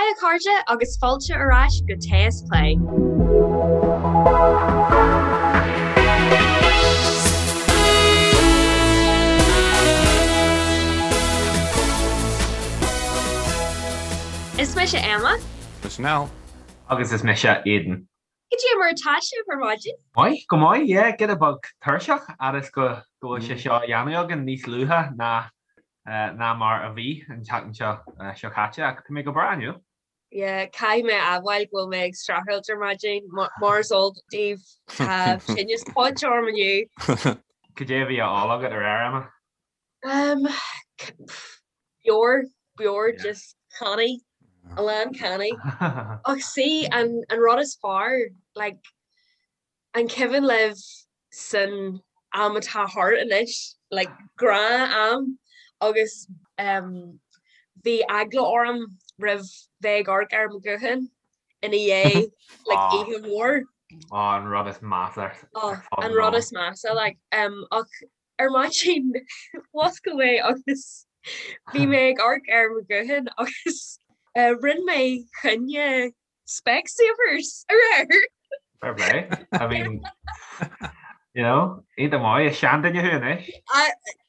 Haigh a chairde agus fáilte ar ais go Tae is Plé. Is mise Emma. Mise Niall. Agus is mise Aidan. Cad é mar atá sibh ar maidin? Maith, go maith, yeah, giota beag tuirseach fhad is go bhfuil sé seo á dhéanamh againn níos luaithe ná ná mar a bhí an tseachtain seo seo caite ach tá mé go breá inniu. Yeah, caithfidh mé a admháil go bhfuil mé ag streachailt ar maidin, mar is eol daoibh tá tinneas poit orm inniu. Cad é a bhí á ól agat aréir, Emma? Um, beoir, beoir, just cannaí, a lán cannaí. Ach see, an, an rud is fearr, like, an cuimhin libh san am atá thart anois, like, gnáth-am, agus um, bhí eagla orm roimh bheith ag amharc ar mo ghuthán ina dhiaidh, like, Ah. oíche mhór. Á, an rud is measa ar Oh, fud an an rud domhain. is measa, like, um, ach Ar maidin, mhuscail mé agus bhí mé ag amharc ar mo ghuthán agus rinne mé coinne Specsavers aréir. Fair play. I mean, you know, iontach maith, is seanduine thú anois.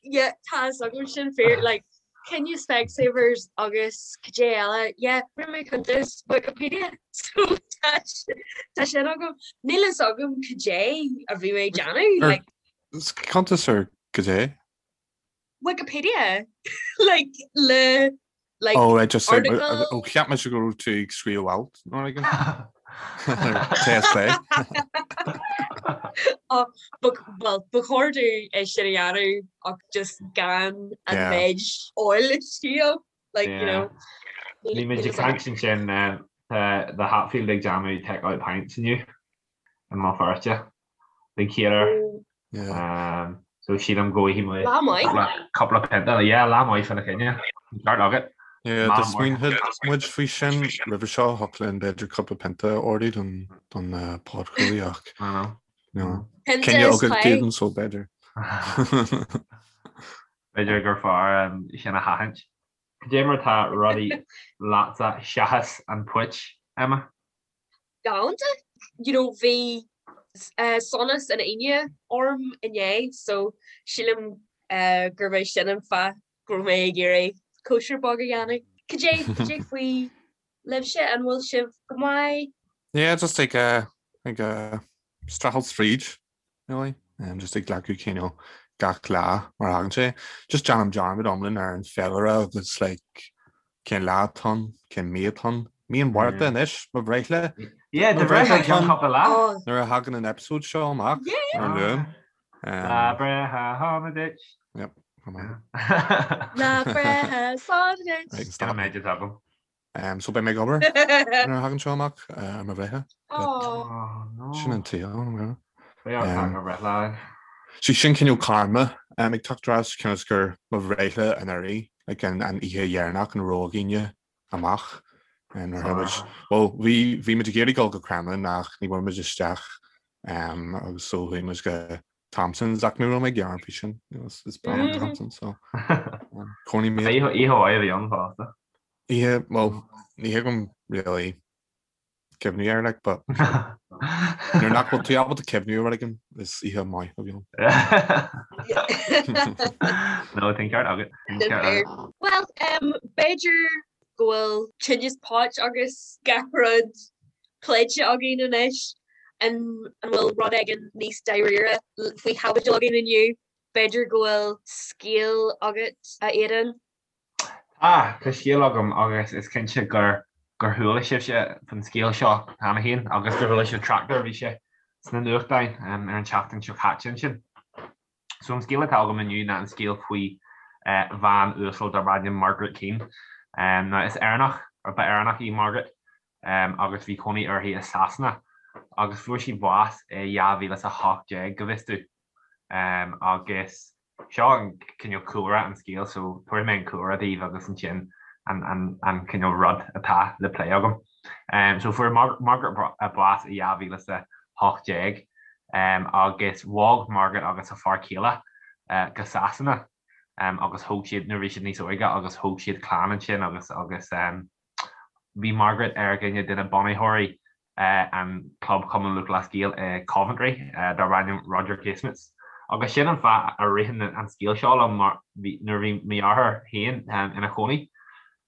Yeah, tá a fhios agam sin fíor, like, coinne Specsavers agus cad é eile, yeah, rinne mé cuntas Wikipedia, so tá sin agam. Níl a fhios agam cad é a bhí mé ag déanamh, like. Cuntas ar cad é? Wikipedia like le like Oh right just article. Oh cheap mise go raibh tú ag scríobh alt nó rud éigin. Tae is Plé. Oh, well ba chóir domh é sin a dhéanamh ach just gan an Yeah. méid óil istigh like you know. Bhí muid ag caint ansin tá The Hatfield ag déanamh take out pints inniu i mBéal Feirste. Den chéad uair. So sílim go bhfaighidh mé Lá maith. cúpla pionta. Yeah, lá maith fána choinne. Ceart agat. Yeah, do smaoinigh muid faoi sin roimhe seo, thiocfadh linn b'fhéidir cúpla pionta a ordú don don podchraoladh ach no. Pionta Cinneadh is agat plé. Aidan so b'fhéidir. B'fhéidir gur fearr sin a sheachaint. Cad é mar tá rudaí leatsa seachas an phoit, Emma? Galánta. You know bhí sonas an Aoine orm inné so sílim gurb é sin an fáth go raibh mé ag iarraidh cóisir beag a dhéanamh. Cad é cad é faoi libhse, an bhfuil sibh go maith? Yeah, just ag ag streachailt fríd. really. Um, just ag glacadh cineál gach lá mar a thagann sé. Just déanaim dearmad iomlán ar an féilire agus like cén lá atá ann, cén mí atá ann. Mí an Mhárta anois, mo bhreithlá. Yeah, do bhreithlá i gceann cúpla lá. Oh. Nuair a thagann an episode seo amach Yeah. ar an Luan. Lá breithe shona duit. Yep, come on. Lá breithe sona duit. Right, Sin stop. an méid atá agam. So beidh mé ag obair nuair a thagann seo amach ar mo bhreithlá. Oh no. Sin an tsaol. Beidh ort ag mo bhreithlá. Sí sin cineál karma ag teacht ar ais cionn is gur mo bhreithlá anuraidh, like an oíche dheireanach ina raibh againne amach. Nuair a muid, well bhí bhí muid ag iarraidh dul go Cremlin ach ní bhfuair muid isteach agus so chuaigh muid go Thompson's ach ní raibh mé ag gearán faoi sin, is breá liom Thompson's so cónaí mé. Oíche mhaith a bhí ann fosta. Oíche, well, ní thuigim really cuimhniú air like, but nuair nach bhfuil tú ábalta cuimhniú ar rud éigin, is oíche maith a bhí ann. No, tá an ceart agat. Tá an ceart agat. Well, um, b'fhéidir go bhfuil tinneas poit agus gach rud pléite againn anois. An an bhfuil rud éigin níos dáiríre faoi chaibidil againn inniu? B'fhéidir go bhfuil scéal agat, a Aidan? Tá, tá scéal agam agus is cinnte gur gur chuala sibhse faoin scéal seo cheana féin agus gur chuala sibh trácht air, bhí sé sna nuachtáin ar an tseachtain seo caite ansin. So an scéal atá agam inniu ná an scéal faoi bhean uasal darb ainm Margaret Keane. Now is Éireannach, or ba Éireannach í Margaret agus bhí cónaí uirthi i Sasana agus fuair sí bás i 2018 go bhfios domh agus Seo an cineál cúlra an scéil so tabharfaidh mé an cúlra daoibh agus ansin an cineál rud atá le plé agam. So fuair Margaret bás i 2018 agus bhog Margaret agus a fear céile go Sasana agus thóg siad, nuair a bhí siad níos óige, agus thóg siad clann ansin agus agus. Bhí Margaret ar dhuine de na bunaitheoirí an Club Chumann Lúthchleas Gael i Coventry darb ainm Roger Casement. Agus sin an fáth a ritheann an scéal seo liom mar nuair a bhí mo dheartháir féin ina chónaí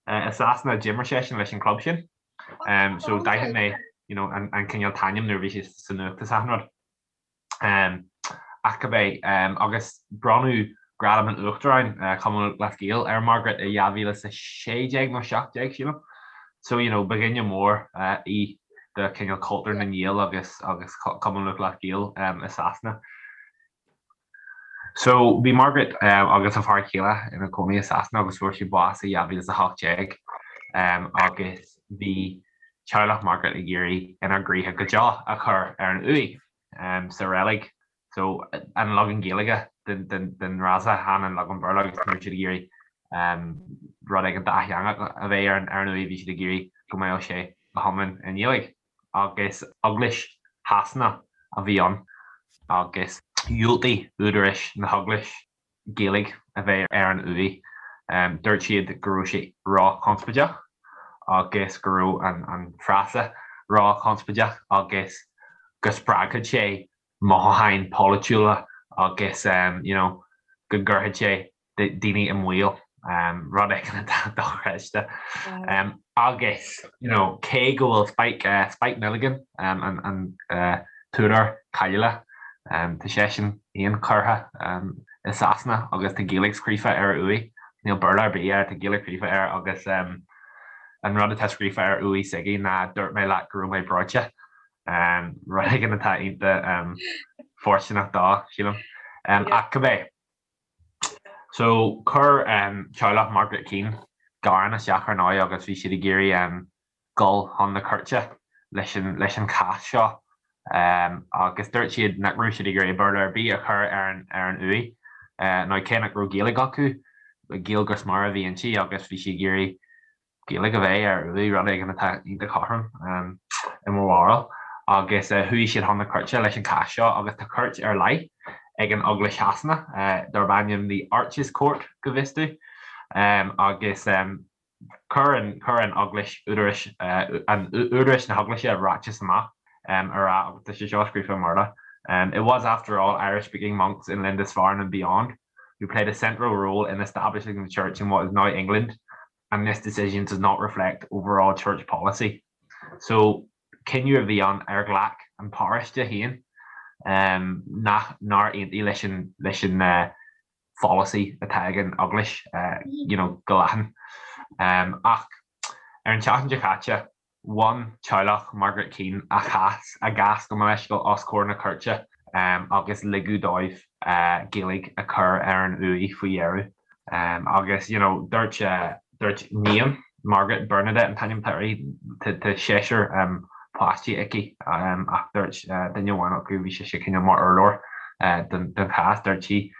i Sasana d'imir seisean leis an club sin. So d'aithin mé you know an cineál t-ainm nuair a bhí sé sa nuacht is achan rud. Ach cibé, agus bronnadh Gradam an Uachtaráin, Chumann Lúthchleas Gael, ar Margaret i 2016 nó 17, sílim. So, you know, ba dhuine mór í do cineál cultúr na nGael agus agus Cumann Lúthchleas Gael i Sasana. So, bhí Margaret agus a fear céile ina cónaí i Sasana agus fuair sí bás i 2018 agus bhí teaghlach Margaret ag iarraidh inár gcroíthe go deo a chur ar an uaigh sa reilig. So, an leagan Gaeilge den fhrása, chan an leagan Béarla agus ní raibh siad ag iarraidh rud éigin dátheangach a bheith ar an uaigh, bhí siad ag iarraidh go mbeadh sé go hiomlán i nGaeilge. Agus Eaglais Shasana a bhí ann agus dhiúltaigh údaráis na hEaglais Gaeilge a bheith ar an uaigh. Dúirt siad go raibh sé ró-chonspóideach agus go raibh an frása ró-chonspóideach agus go spreagfadh sé mothúcháin pholaitiúla agus you know go gcuirfeadh sé daoine i mbaol, rud éigin atá dochreidte. Agus you know cé go bhfuil Spike, Spike Milligan, an t-údar cáiliúil, tá seisean féin curtha i Sasana agus tá Gaeilge scríofa ar a uaigh, níl Béarla ar bith air, tá Gaeilge scríofa air agus an rud atá scríofa ar uaigh s'aige ná 'dúirt mé leat go raibh mé breoite', rud éigin atá iontach fóirsteanach dó, sílim. Ach cibé. So chuir teaghlach Margaret Keane gearán isteach ar ndóigh agus bhí siad ag iarraidh dul chun na cúirte leis an leis an chás seo agus dúirt siad nach raibh siad ag iarraidh Béarla ar bith a chur ar an ar an uaigh nó cé nach raibh Gaeilge acu, Gaeilge go smior a bhí inti agus bhí siad ag iarraidh Gaeilge a bheith ar uaigh, rud éigin atá iontach cothrom i mo bharúil, agus chuaigh siad chun na cúirte leis an chás seo agus tá cúirt ar leith ag an Eaglais Shasana darb ainm The Arches Court go bhfios domh agus chuir an chuir an Eaglais údarais an údarais na hEaglaise ráiteas amach ag rá agus tá sé seo scríofa i mBéarla It was after all Irish-speaking monks in Lindisfarne and beyond who played a central role in establishing the church in what is now England and this decision does not reflect overall church policy. So, cinneadh a bhí ann ar ghlac an paróiste féin nach nár aontaigh leis an leis an pholasaí atá ag an Eaglais you know go leathan. Ach ar an tseachtain seo caite, Bhain teaghlach Margaret Keane a chás, a gcás gabh mo leithscéal, os comhair na cúirte agus ligeadh dóibh Gaeilge a chur ar an uaigh faoi dheireadh. Agus you know dúirt, dúirt níon Margaret, Bernadette an t-ainm atá uirthi, tá seisear páistí aici ach dúirt duine amháin acu, bhí sise cineál mar urlabhraí don chás, dúirt sí,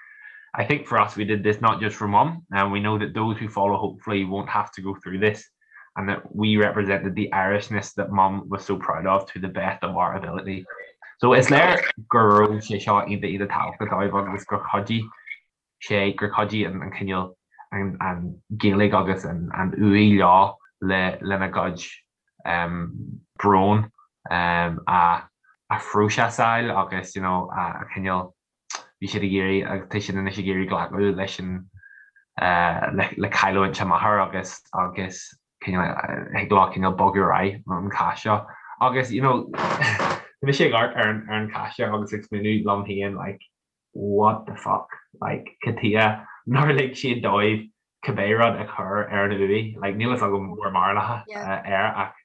I think for us we did this not just for mum and we know that those who follow hopefully won't have to go through this. and that we represented the Irishness that mum was so proud of to the best of our ability. So is léir go raibh sé seo iontach iontach tábhachtach dóibh agus gur chuidigh sé, gur chuidigh an cineál an Ghaeilge agus an uaigh leo le lena gcuid brón a phróiseasáil agus you know a chineál bhí siad ag iarraidh agus tá siad anois ag iarraidh glacadh leis an le cailliúint a máthar agus agus cineál thig leo cineál bogadh ar aghaidh ón chás seo agus you know tá mise ag amharc ar an ar an chás seo agus ag smaoineamh liom féin like what the fuck like cad chuige nár lig siad dóibh cibé rud a chur ar an uaigh like níl fhios agam bhur mbarúlacha air ach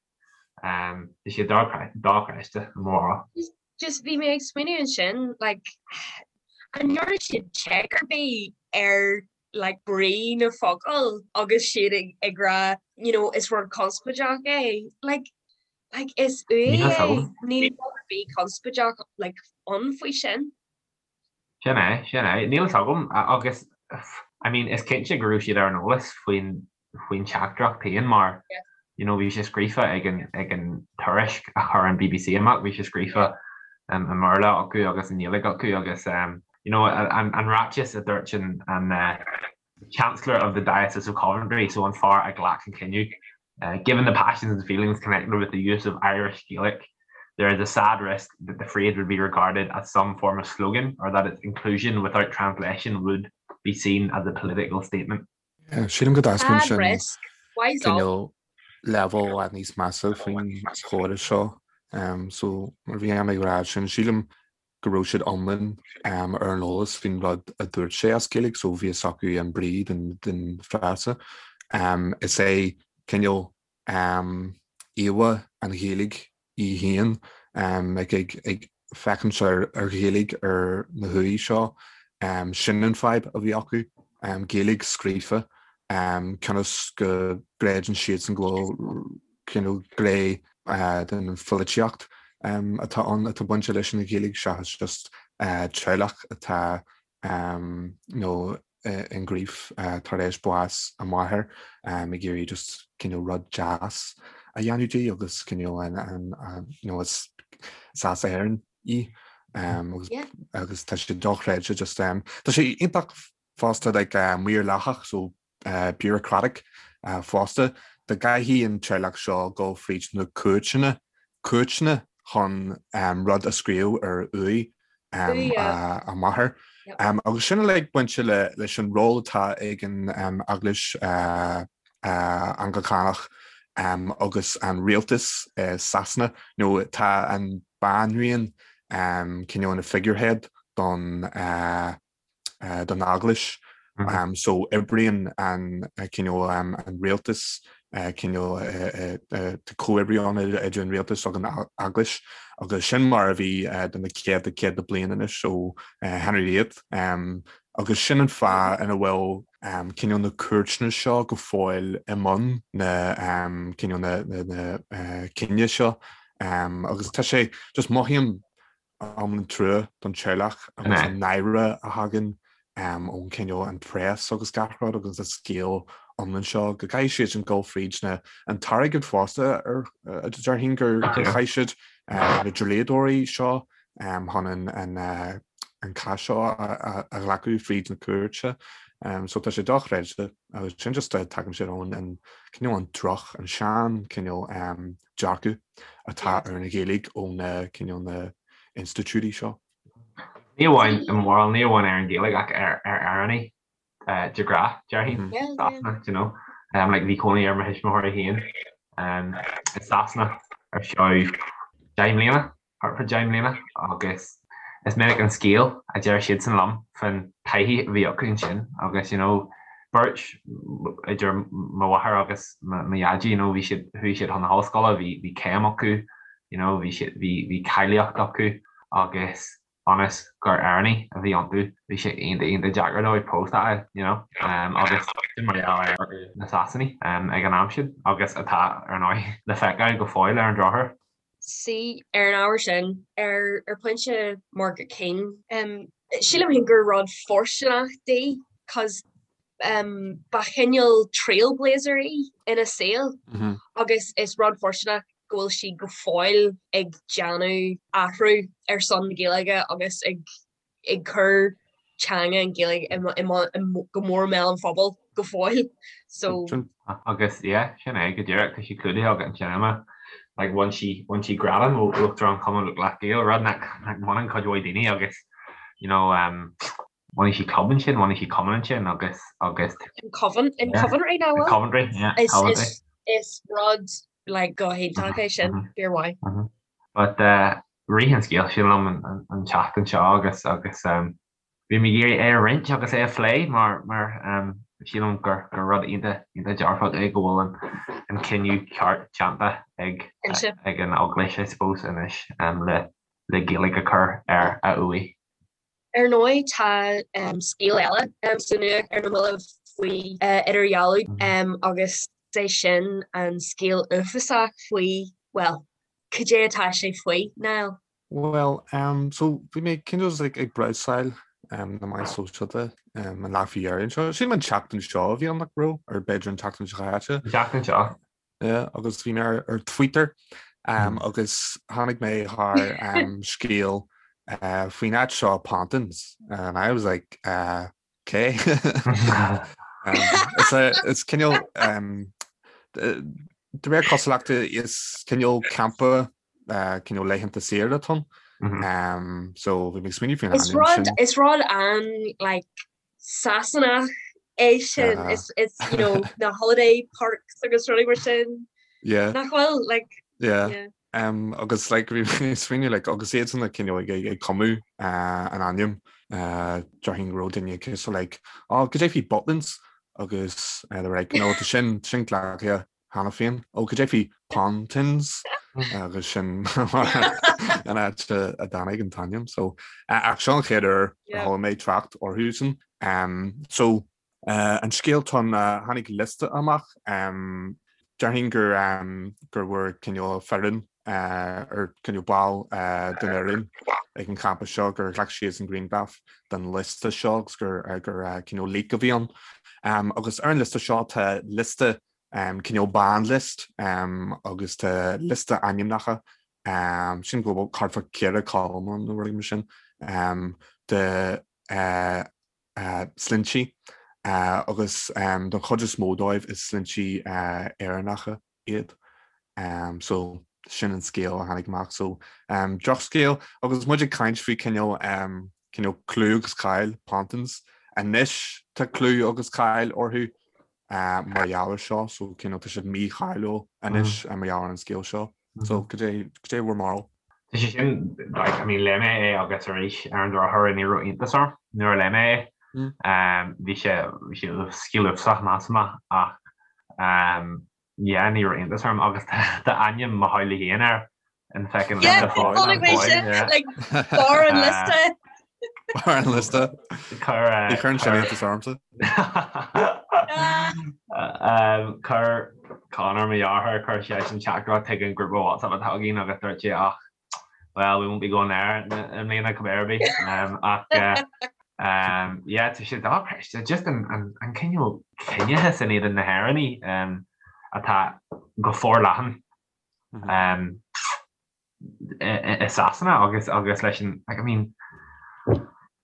tá sé dochreidte i mo bharúil. Just bhí mé ag smaoineamh ansin like an ndearna siad check ar bith ar like brí na focal agus siad ag ag rá you know is rud conspóideach é like like is uaigh é níl rud ar bith conspóideach like ann faoi sin. Sin é, sin é. Níl fhios agam agus I mean is cinnte go raibh siad ar an eolas faoin faoin teachtaireacht féin mar you know bhí sé scríofa ag an ag an tuairisc a chuir an BBC amach, bhí sé scríofa i mBéarla acu agus i nGaeilge acu agus you know an an ráiteas a dúirt an an Chancellor of the Diocese of Coventry, so an fear a ghlac an cinneadh. Given the passions and feelings connected with the use of Irish Gaelic, there is a sad risk that the phrase would be regarded as some form of slogan or that its inclusion without translation would be seen as a political statement. Sílim go dtaispeánann sin cineál leibhéal i bhfad níos measa faoin chóras seo. So mar bhí mé ag rá sin, sílim go raibh siad iomlán ar an eolas faoin rud a dúirt sé as Gaeilge so bhí fhios acu an brí den frása. Is é cineál íomhá an Ghaeilge í féin ag féachaint ar Ghaeilge ar na huaigh seo. Sin an fadhb a bhí acu, Gaeilge scríofa, cionn is go gcreideann siadsan go bhfuil cineál gné den pholaitíocht atá ann atá bainte leis an Ghaeilge seachas just teaghlach atá nó in grief tar éis bás a máthair ag iarraidh just cineál rud deas a dhéanamh di agus cineál an nó is as Éirinn í agus tá sé dochreidte just tá sé iontach fosta like maorlathach so bureaucratic fosta dá gcaithfidh an teaghlach seo dul fríd na cúirteanna cúirteanna chun rud a scríobh ar uaigh a máthar. Agus sin uilig bainte leis an ról atá ag an Eaglais Anglacánach agus an rialtas i Sasana, nó tá an banríon cineál ina figurehead don don Eaglais. So oibríonn an cineál an rialtas cineál tá comhoibriú ann idir an rialtas agus an Eaglais agus sin mar a bhí do na céadta céadta bliain anois ó Henry VIII. Agus sin an fáth ina bhfuil cineál na cúirteanna seo go fóill i mbun na cineál na cinneadh seo agus tá sé just mothaím iomlán trua don teaghlach agus an náire a thagann ón cineál an press agus gach rud agus an scéal iomlán seo go gcaithfidh siad sin dul fríd na an t-airgead fosta ar déarfainn gur chaith siad na dlíodóirí seo chun an an cás seo a ghlacadh fríd na cúirte. So tá sé dochreidte agus sin just tagann sé ón an cineál an droch an sean cineál dearcadh atá ar an Ghaeilge ó na cineál na institiúidí seo. Ní amháin i mórán, ní amháin ar an Ghaeilge ach ar Éireannaigh de ghnáth, déarfainn, Sasana, do you know. Like bhí cónaí ar mo thuismitheoirí féin i Sasana ar feadh 10 mbliana. thart fá 10 mbliana agus is minic an scéal a deir siadsan liom faoin taithí a bhí acu ansin agus you know beirt idir mo mháthair agus mo dhaidí you know bhí siad chuaigh siad chun na hollscoile bhí bhí céim acu you know bhí siad bhí bhí cáilíocht acu agus ionas gur Éireannaigh a bhí iontu bhí sé iontach iontach deacair dóibh post a fháil you know agus sin mar gheall ar na Sasanaigh ag an am sin agus atá ar ndóigh le feiceáil go fóill ar an drochuair. See, ar an ábhar sin, ar ar pointe Margaret Keane, sílim féin gur rud fóirsteanach di cos ba chineál trailblazer í ina saol agus is rud fóirsteanach go bhfuil sí go fóill ag déanamh athrú ar son na Gaeilge agus ag ag cur teanga an Ghaeilge go mór i mbéal an phobail go fóill. So. Agus yeah, sin é go díreach, tá sí clúdaithe agat ansin Emma. Like bhain sí, bhain sí gradam ó Uachtarán Chumann Lúthchleas Gael, rud nach, nach mbaineann cuid mhaith daoine agus you know um, bhunaigh sí club ansin, bhunaigh sí cumann ansin agus, agus. In Coven, in Coventry now bhfuil? In Coventry, yeah, Is, Coventry. is, is rud like go hiontach é sin, fíor mhaith. But uh, Rith an scéal sin liom an tseachtain seo agus agus bhí mé ag iarraidh é a roinnt agus é a phlé mar mar sílim gur gur rud iontach iontach dearfach é go bhfuil an an cinneadh ceart déanta ag ag an Eaglais I suppose anois le le Gaeilge a chur ar a uaigh. Ar ndóigh tá scéal eile sa nuacht ar na mallaibh faoi idirdhealú agus is é sin an scéal uafásach faoi, bhuel, cad é atá sé faoi, Niall? Bhuel, so bhí mé cineál like ag brabhsáil na meáin sóisialta an lá faoi dheireadh anseo. Sílim an tseachtain seo a bhí ann nach raibh, or b'fhéidir an tseachtain seo caite. An tseachtain seo. Yeah, agus bhí mé ar ar Twitter agus tháinig mé thar scéal faoin áit seo Pontins and I was like uh, okay. Is cineál. De réir cosúlachta is cineál campa cineál laethanta saoire atá ann. So bhí mé ag smaoineamh faoin ainm sin. Is rud an like Sasanach é sin is is you know na holiday parks agus rudaí mar sin. Yeah. Nach bhfuil like yeah. yeah. Um, agus like bhí mé ag smaoineamh like agus iad san cineál ag ag cumadh uh, an ainm uh, déarfainn go raibh duine cosúil like oh, cad é faoi Butlins agus uh, they're like no tá sin sin glactha cheana féin ó cad é faoi Pontins agus sin an áit a dtáinig an t-ainm so ach seo an chéad uair a chuala mé trácht orthu sin. So an scéal atá ann tháinig liosta amach déarfainn gur gur bhfuair cineál foireann ar cineál ball den fhoireann ag an champa seo gur ghlac siad an grianghraf den liosta seo agus gur gur cineál leak a bhí ann. Agus ar an liosta seo tá liosta cineál ban list agus tá liosta ainmneacha sin go bhfuil thart fá 4 column ann nó rud mar sin de sloinnte agus don chuid is mó dóibh is sloinnte Éireannacha iad. So sin an scéal a tháinig amach. So drochscéal agus muid ag caint faoi cineál cineál clú agus cáil Pontins. Anois tá clú agus cáil orthu mar gheall ar seo, so cineál tá siad mícháiliúil anois mar gheall ar an scéal seo. So cad é cad é bhur mbarúil? Tá sé sin, like, I mean, léigh mé é agus arís ar an drochuair ní raibh iontas orm nuair a léigh mé é. Bhí sé bhí sé scéal uafásach measaim ach yeah ní raibh iontas orm agus tá ainm mo theaghlaigh féin air an feckin Yeah, liosta fáil chonaic mé sin, yeah. like, barr an liosta. Barr an liosta. Chuir Ní chuireann sin iontas ormsa. Chuir Conor mo dheartháir, chuir seisean teachtaireacht chuig an grúpa WhatsApp atá againn agus dúirt sé ach well we won't be going there i mbliana cibé ar bith. Ach yeah tá sé dochreidte just an an cineál ciníochas in éadan na hÉireannaigh atá go forleathan i Sasana agus agus leis an like I mean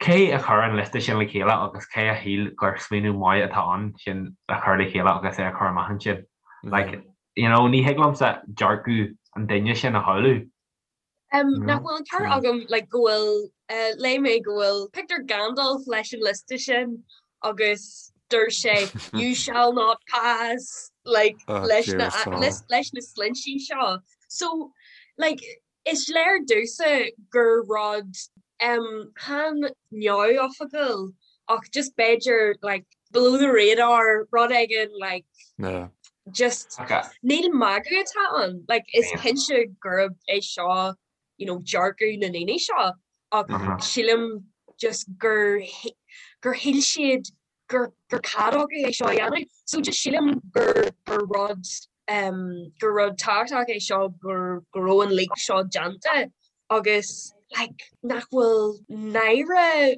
cé a chuir an liosta sin le chéile agus cé a shíl gur smaoineamh maith atá ann sin a chur le chéile agus é a chur amach ansin? Like you know ní thig liomsa dearcadh an duine sin a shamhlú. Um, nach bhfuil an ceart agam like, go bhfuil uh, léigh mé go bhfuil pictiúr Gandalf leis an liosta sin agus dúirt sé you shall not pass like oh, leis na leis, leis na sloinnte seo. So like is léir domhsa gur rud um, chan neamhoifigiúil ach just b'fhéidir like below the radar rud éigin like yeah. just okay. níl magadh atá ann like is cinnte gurb é seo you know dearcadh na ndaoine seo ach sílim just gur gur shíl siad gur gur cead acu é seo a dhéanamh. So just sílim gur gur rud um, gur rud tábhachtach é seo gur go raibh an leak seo déanta agus like nach bhfuil náire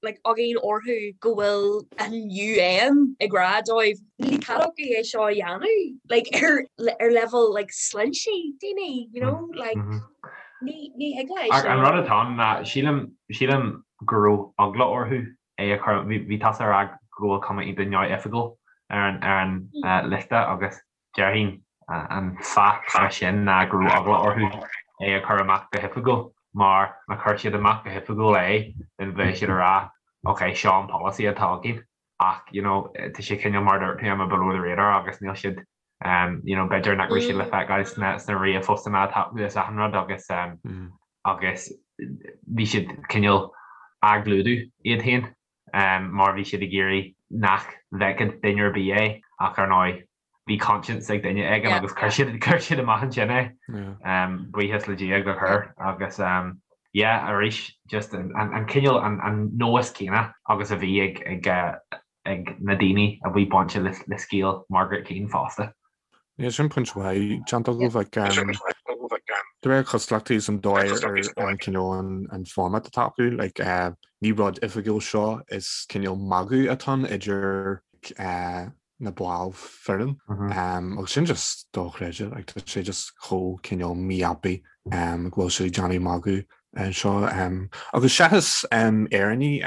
like againn orthu go bhfuil an UN ag rá dóibh níl cead acu é seo a dhéanamh like ar ar level like sloinnte daoine you know like mm -hmm. Ní ní thig leis. Ach an rud atá ann ná sílim sílim go raibh eagla orthu é a chur bhí bhí tusa ag rá go bhfuil cuma iontach neamhoifigiúil ar an ar an liosta agus déarfainn an fáth leis sin ná go raibh eagla orthu é a chur amach go hoifigiúil mar má chuir siad amach go hoifigiúil é then bheadh siad ag rá ok seo an polasaí atá againn ach you know tá sé cineál mar a dúirt tú below the radar agus níl siad you know b'fhéidir nach raibh siad le feiceáil sna sna ríomhphostanna atá acu is achan rud agus agus bhí siad cineál á gclúdú iad féin mar bhí siad ag iarraidh nach bhfeicfeadh duine ar bith é ach ar ndóigh bhí conscience ag duine éigin agus chuir siad chuir siad amach ansin é. Buíochas le Dia gur chuir agus yeah arís just an an cineál an an nós céanna agus a bhí ag ag ag na daoine a bhí bainte le scéal Margaret Keane fosta. Yeah, sin pointe mhaith déanta agaibh like de réir cosúlachta is an dóigh ar an cineál an format atá acu like ní rud oifigiúil seo is cineál magadh atá ann idir na baill foireann agus sin just dochreidte like tá sé just chomh cineál mífhapaidh go bhfuil siad ag déanamh magadh anseo agus seachas Éireannaigh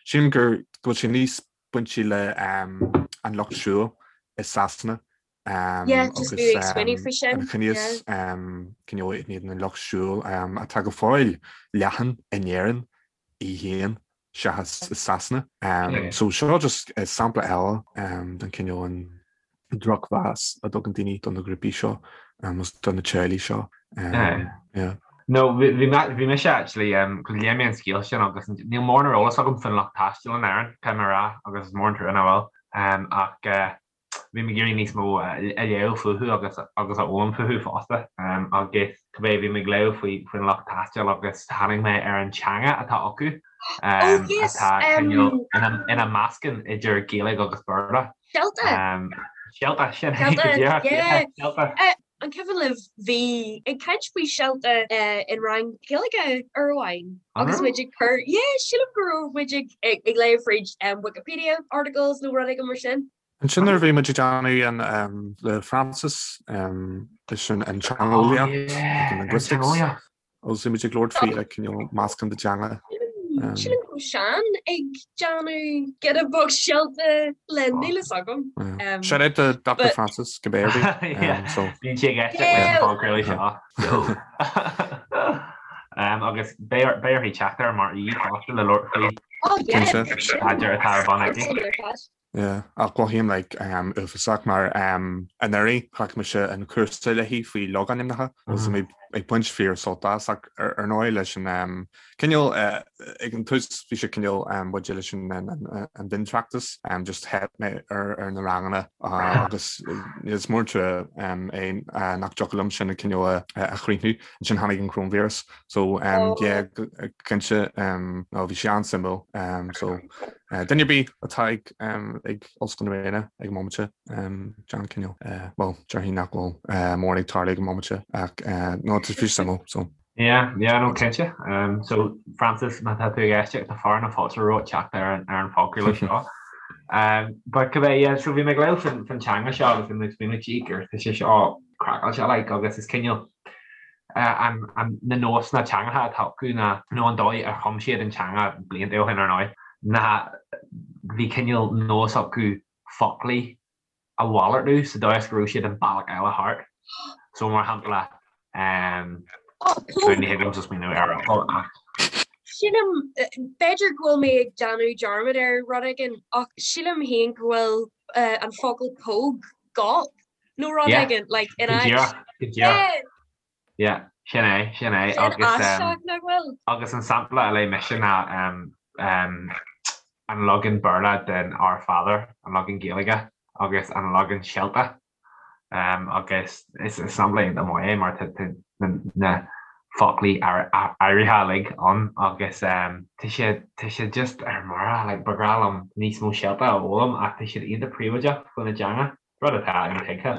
sílim gur go bhfuil sé níos bainte le an lucht siúil i Sasana. Yeah, just bhí ag smaoineamh faoi sin. An ciníochas cineál in éadan an lucht siúil atá go fóill leathan in Éirinn í féin seachas i Sasana. So seo just sampla eile den cineál an drochmheas a dtugann daoine do na grúpaí seo agus do na teaghlaigh seo. Yeah. No, bhí mise actually, cos léigh mé an scéal sin agus níl mórán ar eolas agam faoin lucht taistil in Éirinn, caithfidh mé a rá, agus is mór an trua nach bhfuil. Ach bhí mé ag iarraidh níos mó a léamh fúthu agus agus a fhoghlaim fúthu fosta. Agus cibé, bhí mé ag léamh faoi faoin lucht taistil agus tháinig mé ar an teanga atá acu atá cineál ina meascán idir Gaeilge agus Béarla. Shelta! Shelta, sin é go díreach, yeah, Shelta. An cuimhin libh, bhí ag caint faoi Shelta in rang Gaeilge uair amháin agus muid ag cur, yeah, sílim go raibh muid ag ag léamh fríd Wikipedia articles nó rud éigin mar sin. Ansin nuair a bhí muid ag déanamh an le Francis leis an teangeolaíocht, an linguistics, Agus bhí muid ag labhairt faoi like you know meascán de teanga. Sílim go raibh Seán ag déanamh giota beag Shelta le níl fhios agam. Shout out to Dr Francis go b'fhéidir. Bíonn sé ag éisteacht leis an phodchraoladh seo. Agus beidh uirthi teacht air mar aoi fosta le labhairt faoi staidéar atá ar bun aici. Yeah, ach mothaím like uafásach mar anuraidh ghlac mise an cúrsa léi faoi logainmneacha agus mé ag baint fíor sult as ach ar ndóigh leis an cineál ag an tús bhí sé cineál maidir leis an an mhiontráchtas just theip mé ar na ranganna agus is mór an trua é nach dtiocfadh liom sin cineál a chríochnú. Ansin tháinig an coróinvíreas so yeah cinnte no bhí sé an-suimiúil so Duine ar bith atá ag ag Ollscoil na Ríona ag an mbomaite, déan cineál, bhuel, déarfainn nach bhfuil mórán ag tarlú ag an mbomaite ach no, tá sé suimiúil, so. Yeah, yeah, no, cinnte. So, Francis, má tá tú ag éisteacht, tá fear na fáilte romhat teacht ar an ar an phodchraoladh seo. But cibé, yeah, so bhí mé ag léamh faoin teanga seo agus bhí mé ag smaoineamh, gee, gur tá sé seo craiceáilte, like, agus is cineál, na nósanna teangacha atá acu ná, nó an dóigh ar chum siad an teanga blianta ó shin ar ndóigh, ná bhí cineál nós acu foclaí a mhalartú sa dóigh is go raibh siad an bealach eile thart. So mar shampla, ní thig liomsa smaoineamh ar fhocal ach. Sílim, b'fhéidir go bhfuil mé ag déanamh dearmad ar rud éigin ach sílim féin go bhfuil an focal póg gop nó rud éigin, like, in áit. Go díreach, go díreach. Yeah, sin é, sin é. Sin aisteach, nach bhfuil? Agus an sampla a léigh mise ná an leagan Béarla den Our Father, an leagan Gaeilge agus an leagan Shelta. Agus is sampla iontach maith é mar tá na foclaí áirithe uilig ann agus tá sé, tá sé just ar mire, like, ba bhreá liom níos mó Shelta a fhoghlaim ach tá siad iontach príobháideach faoina dteanga. rud atá intuigthe,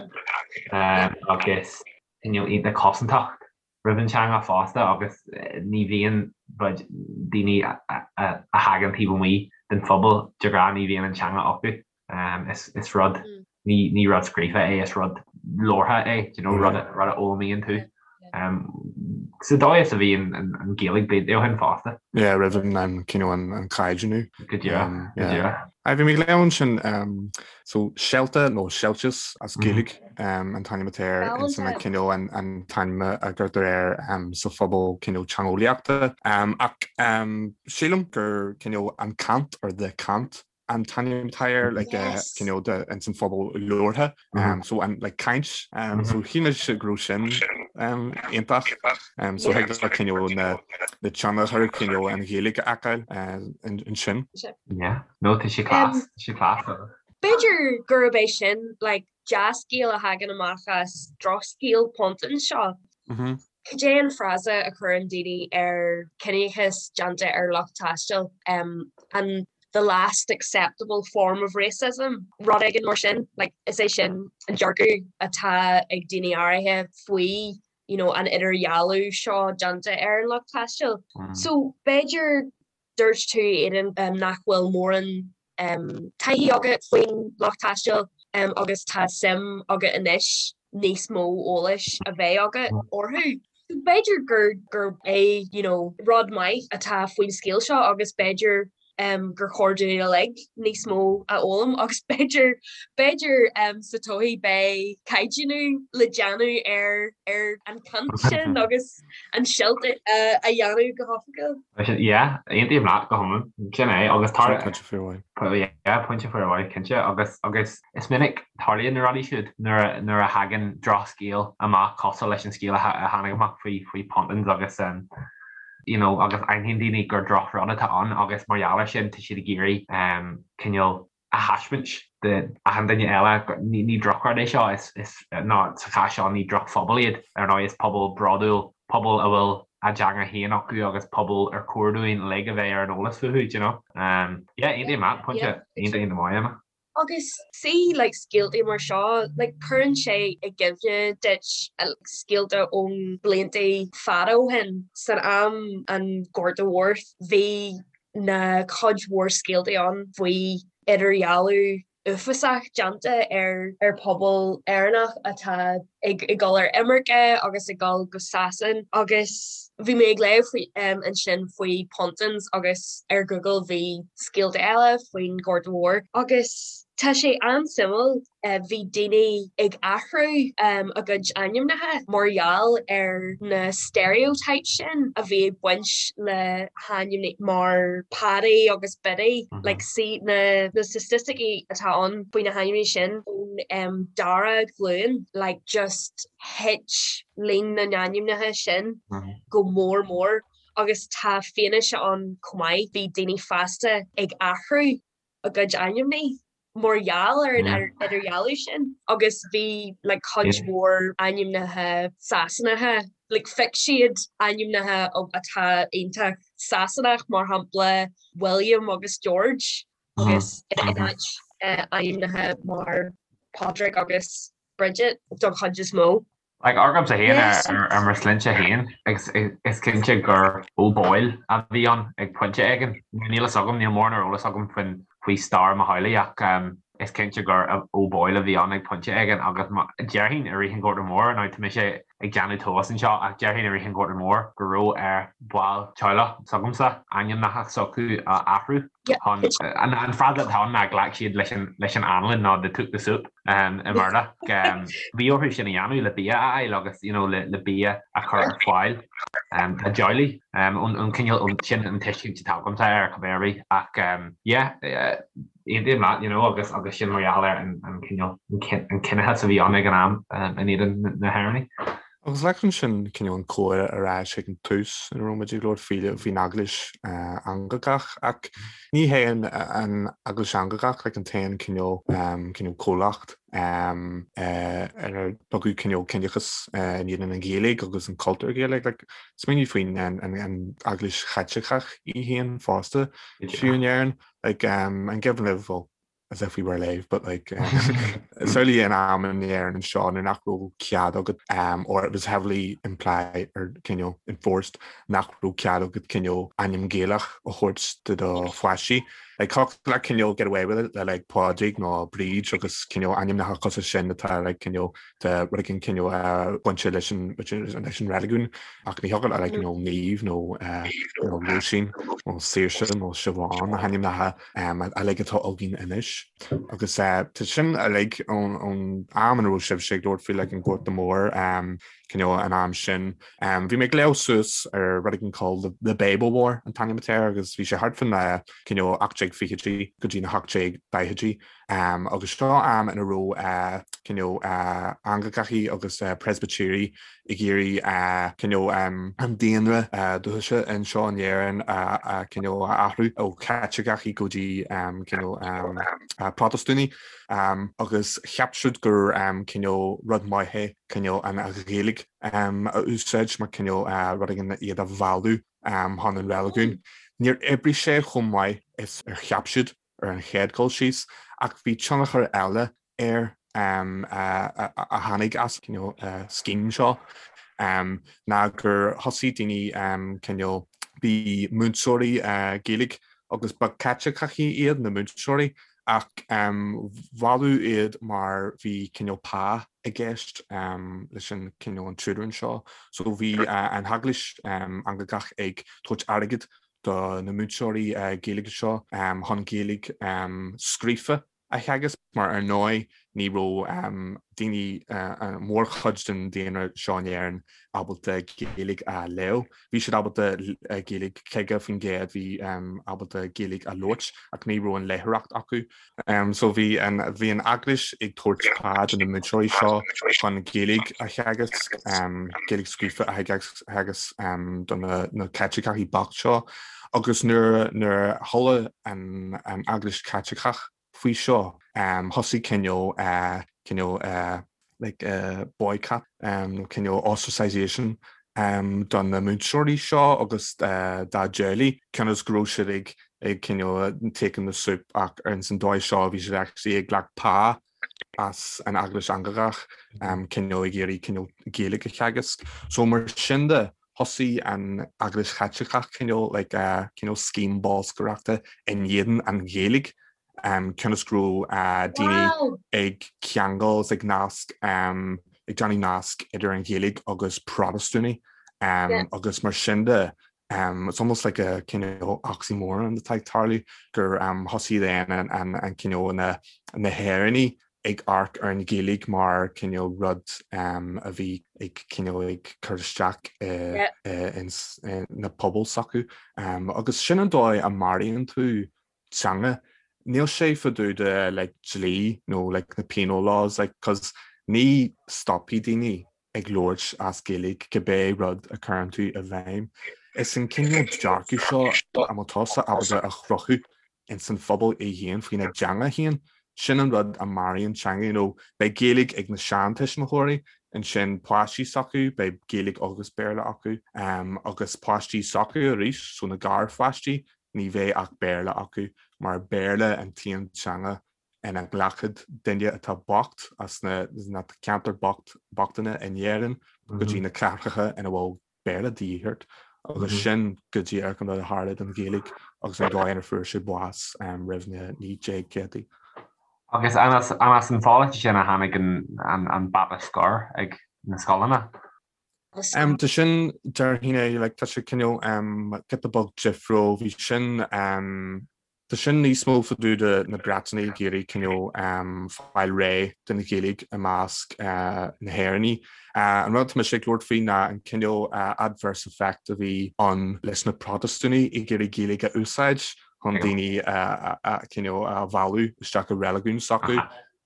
agus cineál iontach cosantach roimh an teanga fosta agus ní bhíonn daoine a thagann taobh amuigh den phobal de ghnáth ní bhíonn an teanga acu. Is rud, ní rud scríofa é, is rud labhartha é, do you know, rud a fhoghlaimíonn tú. Sa dóigh is a bhí an Ghaeilge blianta ó shin fosta. Yeah, roimh an cineál an caighdeánú. Go díreach, go díreach. Aye, bhí mé ag léamh ansin, so Shelta nó Shelties as Gaeilge an t-ainm atá air ins an cineál an t-ainm a gcuirtear air sa phobal cineál teangeolaíochta. Ach sílim gur cineál an cant or the cant an t-ainm atá air like cineál de ins an phobal labhartha so an like caint so shíl mise go raibh sin iontach so thig le cineál na na tionchar cineál an Ghaeilge a fheiceáil ansin. Yeah, no tá sé class, tá sé class. B'fhéidir gurb é sin like dea-scéal a thagann amach as drochscéal Pontins seo. Cad é an frása a chuireann daoine ar ciníochas déanta ar lucht taistil? An the last acceptable form of racism, rud éigin mar sin. Like, is é sin an dearcadh atá ag daoine áirithe faoi you know, an idirdhealú seo déanta ar an lucht taistil. So b'fhéidir Dúirt tú, Aidan, nach bhfuil mórán taithí agat faoin lucht taistil agus tá suim agat anois níos mó eolais a bheith agat orthu. B'fhéidir gur gurb é you know, rud maith atá faoin scéal seo agus b'fhéidir. gur chóir dúinn uilig níos mó a fhoghlaim agus b'fhéidir b'fhéidir sa todhchaí beidh caighdeánú le déanamh ar ar an chaint sin agus an silt a dhéanamh go hoifigiúil. Yeah, aontaím leat go hiomlán. Sin é agus tar Pointe fíormhaith. Yeah, pointe fíormhaith, cinnte agus agus is minic tarlaíonn na rudaí siúd nuair nuair a thagann drochscéal amach cosúil leis an scéal a tháinig amach faoi faoi Pontins agus you know agus aithníonn daoine gur drochrud atá ann agus mar gheall air sin tá siad ag iarraidh cineál a thaispeáint d'achan duine eile ní drochrud é seo, is, is, ná sa chás seo ní drochphobal iad, ar ndóigh is pobal bródúil, pobal a bhfuil a dteanga féin acu agus pobal ar chóir dúinn uilig a bheith ar an eolas fúthu, do you know. Yeah, aontaím leat, pointe iontach iontach maith, Emma. Agus see like scéaltaí mar seo, like cuireann sé i gcuimhne duit scéalta ón blianta fada ó shin. San am an Ghorta Mhóir bhí na cuid mhór scéaltaí ann faoi idirdhealú uafásach déanta ar ar pobal Éireannach atá ag ag dul ar imirce agus ag dul go Sasain agus bhí mé ag léamh faoi ansin faoi Pontins agus ar Google bhí scéalta eile faoin Ghorta Mhór agus tá sé an-suimiúil bhí daoine ag athrú a gcuid ainmneacha mar gheall ar na stereotypes sin a bhí ag baint le hainmneacha mar Paddy agus Biddy like see na na staitisticí atá ann faoi na hainmneacha sin ón dara glúin like just thit líon na n-ainmneacha sin go mór mór agus tá fianaise ann chomh maith bhí daoine fásta ag athrú a gcuid ainmneacha mar gheall ar an idirdhealú sin agus bhí like cuid mhór ainmneacha Sasanacha like phioc siad ainmneacha atá iontach Sasanach mar shampla William agus George agus in áit ainmneacha mar Padraig agus Bridget don chuid is mó. Like, agamsa féin ar mo shloinnte féin, is cinnte gur O'Boyle a bhí ann ag pointe éigin. Níl fhios agam, níl mórán ar eolas agam faoin faoi stair mo theaghlaigh ach is cinnte gur O'Boyle a bhí ann ag pointe éigin agus déarfainn i rith an Ghorta Mhóir, now tá mise ag déanamh tomhas anseo ach déarfainn i rith an Ghorta Mhóir go raibh ar bhaill teaghlach s'agamsa ainmneacha s'acu a athrú chun, an frása atá ann ná ghlac siad leis an leis an anlann nó they took the soup i mBéarla. Bhí orthu sin a dhéanamh le bia a fháil agus you know le bia a chur ar fáil dá dteaghlaigh. An cineál sin an tuiscint atá agamsa air cibé ar bith ach yeah aontaím leat you know agus agus sin mar gheall ar an cineál an ciníochas a bhí ann ag an am in éadan na hÉireannaigh. Agus leagann sin cineál an comhrá ar ais ag an tús ina raibh muid ag labhairt faoi faoin Eaglais Anglacach ach ní hé an Eaglais Anglacach like an t-aon cineál cineál comhlacht inar tugadh cineál ciníochas in éadan an Ghaeilge agus an cultúr Gaeilge. Like smaoinigh faoin an Eaglais Chaitliceach í féin fosta fiú in Éirinn. Like an gcuimhin libh well as if we were alive but like certainly in am in Éirinn anseo nuair nach raibh cead agat um, or it was heavily implied or cineál enforced nach raibh cead agat cineál ainm Gaelach a thabhairt do do pháistí. Like thiocfadh leat cineál get away with it le like Pádraig nó Bríd agus cineál ainmneacha cosúil sin atá like cineál de rud éigin cineál uh, bainte leis an leis an reiligiún ach ní thiocfadh le like you know Niamh nó uh, nó Róisín nó Saoirse nó Siobhán na hainmneacha uilig atá againn anois. Agus tá sin uilig ón am ina raibh sibhse ag labhairt faoi like an Gorta Mór cineál an am sin. Bhí mé ag léamh suas ar rud éigin called the Babel War an t-ainm atá air agus bhí sé thart fán cineál 1820idí go dtí na 1840idí. Agus seo am ina raibh cineál Anglacachaí agus Preispitéirigh ag iarraidh cineál an daonra dúchais anseo in Éirinn a cineál a athrú ó Chaitliceachaí go dtí cineál Protastúnaigh agus cheap siad gur cineál rud maith é cineál an Ghaeilge a úsáid mar cineál rud éigin iad a mhealladh chun an reiligiúin. Níor oibrigh sé chomh maith is ar cheap siad ar an chéad dul síos ach bhí tionchar eile air a tháinig as cineál scéim seo ná gur thosaigh daoine cineál, bhí múinteoirí Gaeilge agus ba Caitliceachaí iad na múinteoirí ach mhealladh iad mar bhí cineál pá i gceist leis an cineál an tutoring seo. So bhí an Eaglais Anglacach ag tabhairt airgead. do na múinteoirí Gaeilge seo chun Gaeilge scríofa a theagasc mar ar ndóigh ní raibh daoine, mórchuid den daonra seo in Éirinn ábalta Gaeilge a léamh. Bhí siad ábalta Gaeilge, 50% bhí ábalta Gaeilge a labhairt ach ní raibh an léitheoireacht acu. So bhí an bhí an Eaglais ag tabhairt pá do na múinteoirí seo chun Gaeilge a theagasc, Gaeilge scríofa a theagasc do na Caitliceacha bocht seo agus nuair nuair a chuala an Eaglais Chaitliceach faoi seo, thosaigh cineál cineál like boycott nó cineál ostracisation do na múinteoirí seo agus dá dteaghlaigh, cionn is go raibh siad ag ag cineál taking the soup ach ar an dóigh seo bhí siad actually ag glacadh pá as an Eaglais Anglacach cineál ag iarraidh cineál Gaeilge a theagasc. So mar sin de, thosaigh an Eaglais Chaitliceach cineál like cineál scéim bolscaireachta in éadan an Ghaeilge cionn is go raibh daoine ag ceangal is ag nasc ag déanamh nasc idir an Ghaeilge agus Protastúnaigh agus mar sin de it's almost like a cineál oxymoron atá ag tarlú gur thosaigh then an cineál na hÉireannaigh ag amharc ar an Ghaeilge mar cineál rud a bhí ag cineál ag cur isteach ins na pobail s'acu. Agus sin an dóigh a maraíonn tú teanga. Níl sé fá dtaobh de like dlí nó like na penal laws like cos ní stopfaidh daoine ag labhairt as Gaeilge cibé rud a chuireann tú i bhfeidhm. Is an cineál dearcadh seo a bhfuil tusa ábalta a chruthú ins an phobal é féin faoina dteanga féin, sin an rud a maraíonn teanga. You know, beidh Gaeilge ag na seantuismitheoirí, ansin páistí s'acu, beidh Gaeilge agus Béarla acu, agus páistí s'acu arís, so na garpháistí, ní bheidh ach Béarla acu, mar Béarla an t-aon teanga ina nglacfaidh duine atá bocht as na ceantair bochtana in Éirinn go dtí na cathracha ina bhfuil Béarla de dhíth ort agus sin go díreach an rud a tharla don Ghaeilge agus an dóigh inar fuair sé bás roimh na 1900idí. Agus an as an pholasaí sin a tháinig an bata scoir ag na scoileanna? Tá sin, déarfainn é, like, tá sé cineál giota beag difriúil, bhí sin, Tá sin níos mó fá dtaobh de na Breatanaigh ag iarraidh cineál fáil réidh den Ghaeilge i measc na hÉireannaigh. An rud atá mise ag labhairt faoi ná an cineál adverse effect a bhí ann leis na Protastúnaigh ag iarraidh Gaeilge a úsáid chun daoine a cineál a mhealladh isteach i reiligiún s'acu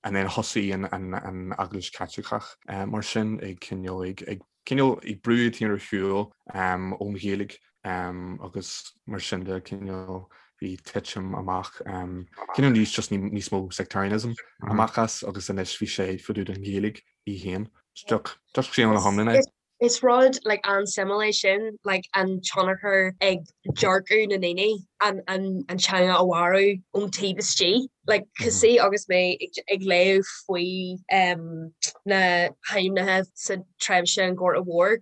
and then thosaigh an Eaglais Chaitliceach mar sin ag cineál ag cineál ag brú iad féin ar shiúl ón Ghaeilge agus mar sin de cineál bhí titim amach cineál níos just níos mó sectarianism amach as agus anois bhí sé fá dtaobh den Ghaeilge í féin. Just sin an hiomlán é. Is rud like an-suimiúil é sin like an tionchar ag dearcadh na ndaoine an an teanga a mharú ón taobh istigh. Like cosúil agus mé ag léamh faoi na hainmneacha sa tréimhse an Ghorta Mhóir,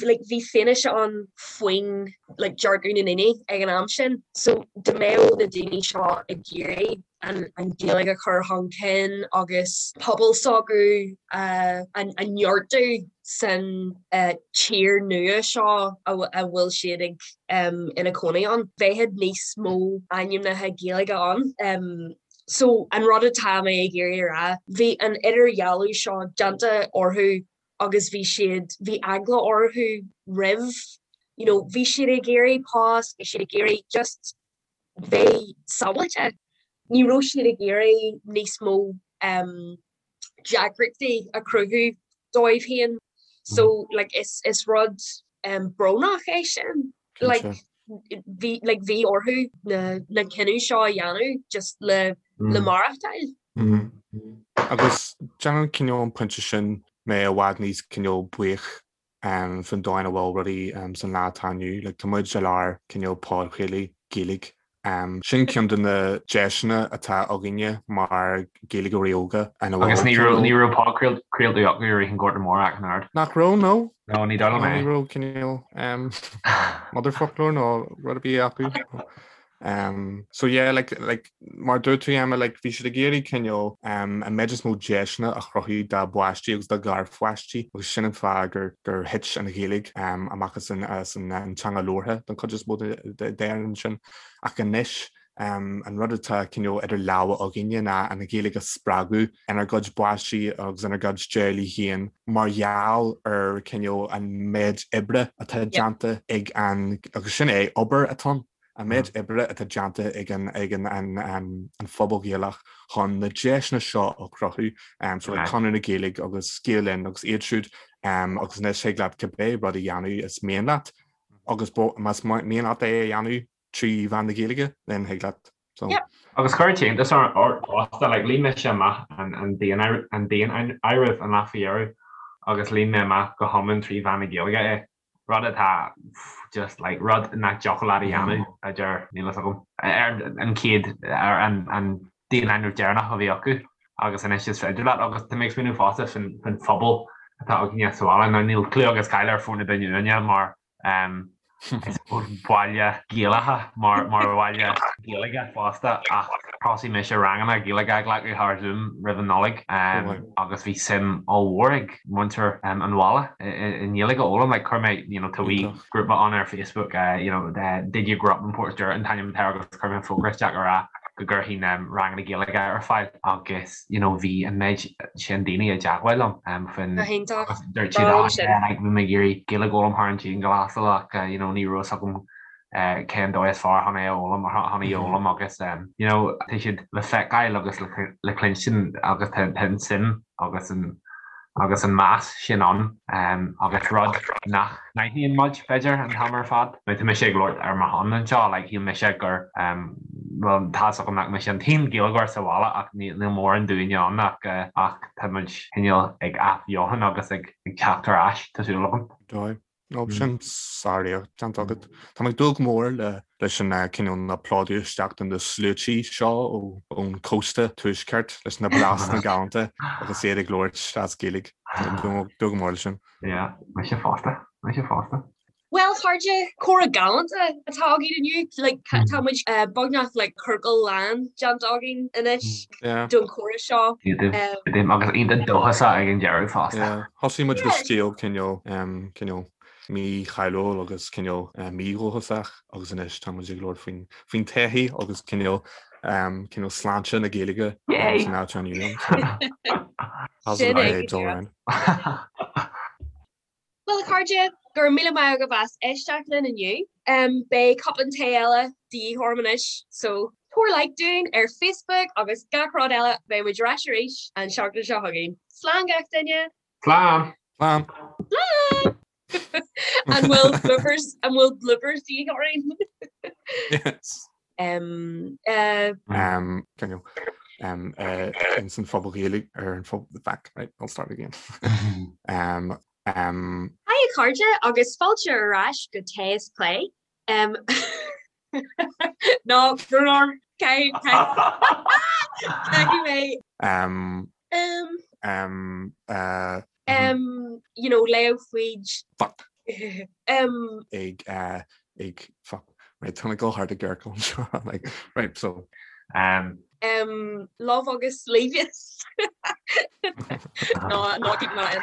like bhí fianaise ann faoin like dearcadh na ndaoine ag an am sin. So dá mbeadh na daoine seo ag iarraidh an an Ghaeilge a chur chun cinn agus pobal s'acu a a neartú san tír nua seo a bhfuil siad ag ina cónaí ann. Bheadh níos mó ainmneacha Gaeilge ann. So an rud atá mé ag iarraidh a rá, bhí an idirdhealú seo déanta orthu agus bhí siad, bhí eagla orthu roimh, you know, bhí siad ag iarraidh post, bhí siad ag iarraidh just bheith sábháilte. Ní raibh siad ag iarraidh níos mó deacrachtaí a chruthú dóibh féin. So like is is rud brónach é sin. Like bhí like bhí orthu na na cinneadh seo a dhéanamh just le le maireachtáil. Agus déanann cineál an pointe sin mé i bhfad níos cineál buíoch faoin dóigh ina bhfuil rudaí san lá atá inniu. Like tá muid i lár cineál podchraoladh Gaeilge. Sin ceann de na deiseanna atá againne mar Ghaeilgeoirí óga ina bhfuil Agus ní raibh ní raibh podchraoltaí acu i rith an Ghorta Mhóir ach an oiread. Nach raibh, no. No, ní dóigh liom é. Ní raibh cineál motherfoclóir nó rud ar bith acu. Um, so yeah, like, like, mar dúirt tú Emma, like, bhí siad ag iarraidh cineál um, an méid is mó deiseanna a chruthú dá bpáistí agus dá garpháistí agus sin an fáth gur, gur thit an Ghaeilge um, amach as an, as an, an teanga labhartha don chuid is mó d'Éirinn ansin. Ach anois um, an rud atá cineál idir lámha againne ná an Ghaeilge a spreagadh inár gcuid bpáistí agus inár gcuid teaghlaigh féin mar gheall ar cineál an méid oibre atá déanta ag an, agus sin é, obair atá ann. An méid oibre atá déanta ag an ag an an an phobal Ghaelach chun na deiseanna seo a chruthú, so like Conradh na Gaeilge agus Gael Linn agus iad siúd agus anois thig leat cibé rud a dhéanamh is mian leat agus más mian leat é a dhéanamh trí mheán na Gaeilge then thig leat. So. Agus chuir an t-iontas ort fosta, like líon mise amach an an daonáireamh an lá faoi dheireadh agus líon mé amach go hiomlán trí mheán na Gaeilge é. rud atá just like rud nach dtiocfadh leat a dhéanamh a deir níl fhios agam ar an chéad ar an an daonáireamh deireanach a bhí acu agus anois is féidir leat agus tá mé ag smaoineamh fosta faoin faoin phobal atá againne sa bhaile now níl cliú agus cáil ar Phort na Binne uainne mar um, I suppose baile Gaelacha mar mar bhaile Gaeilge fosta ach thosaigh mise ranganna Gaeilge a ghlacadh thar Zoom roimh an Nollaig agus bhí suim ollmhór ag muintir an bhaile i nGaeilge a fhoghlaim. Like chuir mé you know tá wee grúpa ann ar Facebook you know Did you grow up in Portstewart an t-ainm atá air agus chuir mé fógra isteach a rá go gcuirfinn ranganna Gaeilge ar fáil agus you know bhí an méid sin daoine i dteagmháil liom faoin Go hiontach. agus dúirt siad ah yeah like bhí mé ag iarraidh Gaeilge a fhoghlaim thar an dianghlasáil ach you know ní raibh fhios agam cén dóigh is fearr chun é a fhoghlaim chun í a fhoghlaim agus you know tá siad le feiceáil agus le cluinstin agus tá an suim agus an agus an meas sin ann agus rud nach n-aithníonn muid b'fhéidir an t-am ar fad. Now tá mise ag labhairt ar mo shon anseo like shíl mise gur bhuel tá fhios agam nach mise an t-aon Ghaeilgeoir sa bhaile ach níl mórán dúinne ann ach ach tá muid cineál ag athbheochan agus ag teacht ar ais tá súil agam. Dóigh. Nó sin sáréacht déanta agat. Tá mé ag dúil go mór le leis an cineál na plódú isteach de na sluaití seo ón cósta tuaisceart leis na blasanna galánta agus iad ag labhairt as Gaeilge. Tá mé ag dúil go mór leis sin. Yeah, mise fosta, mise fosta. Bhuel, a chairde, comhrá galánta atá againn inniu. Like, tá muid beagnach like ciorcal lán déanta againn anois don chomhrá seo. Agus iontach dóchasach ag an deireadh fosta. Thosaigh muid le scéal cineál cineál mícháiliúil agus cineál mídhóchasach agus anois tá muid ag labhairt faoin faoin todhchaí agus cineál cineál sláinte na Gaeilge san áit inniu. Sin é. Bhuel, a chairde, go raibh míle maith agaibh as éisteacht linn inniu. Beidh cupán tae eile de dhíth orm anois, so tabhair like dúinn ar Facebook agus gach rud eile. Beidh muid ar ais arís an seachtain seo chugainn. Slán gach duine! Slán! Slán! Slán! An bhfuil bloopers, an bhfuil bloopers de dhíth orainn? Yes. Um, uh, Um, can you, um, uh, in san phobal Ghaeilge ar an phobal, back, right, I'll start again. Um, um, Hi a chairde agus fáilte ar ais go Tae is Plé. Um, no, no, caithfidh mé. Um, um, um, uh, um, you know, léamh faoid. Fuck. um, ag, uh, ag, fuck, right, tá mé ag dul thart i gciorcal anseo, like, right, so. Um, um, love agus levius. no, no, keep that in.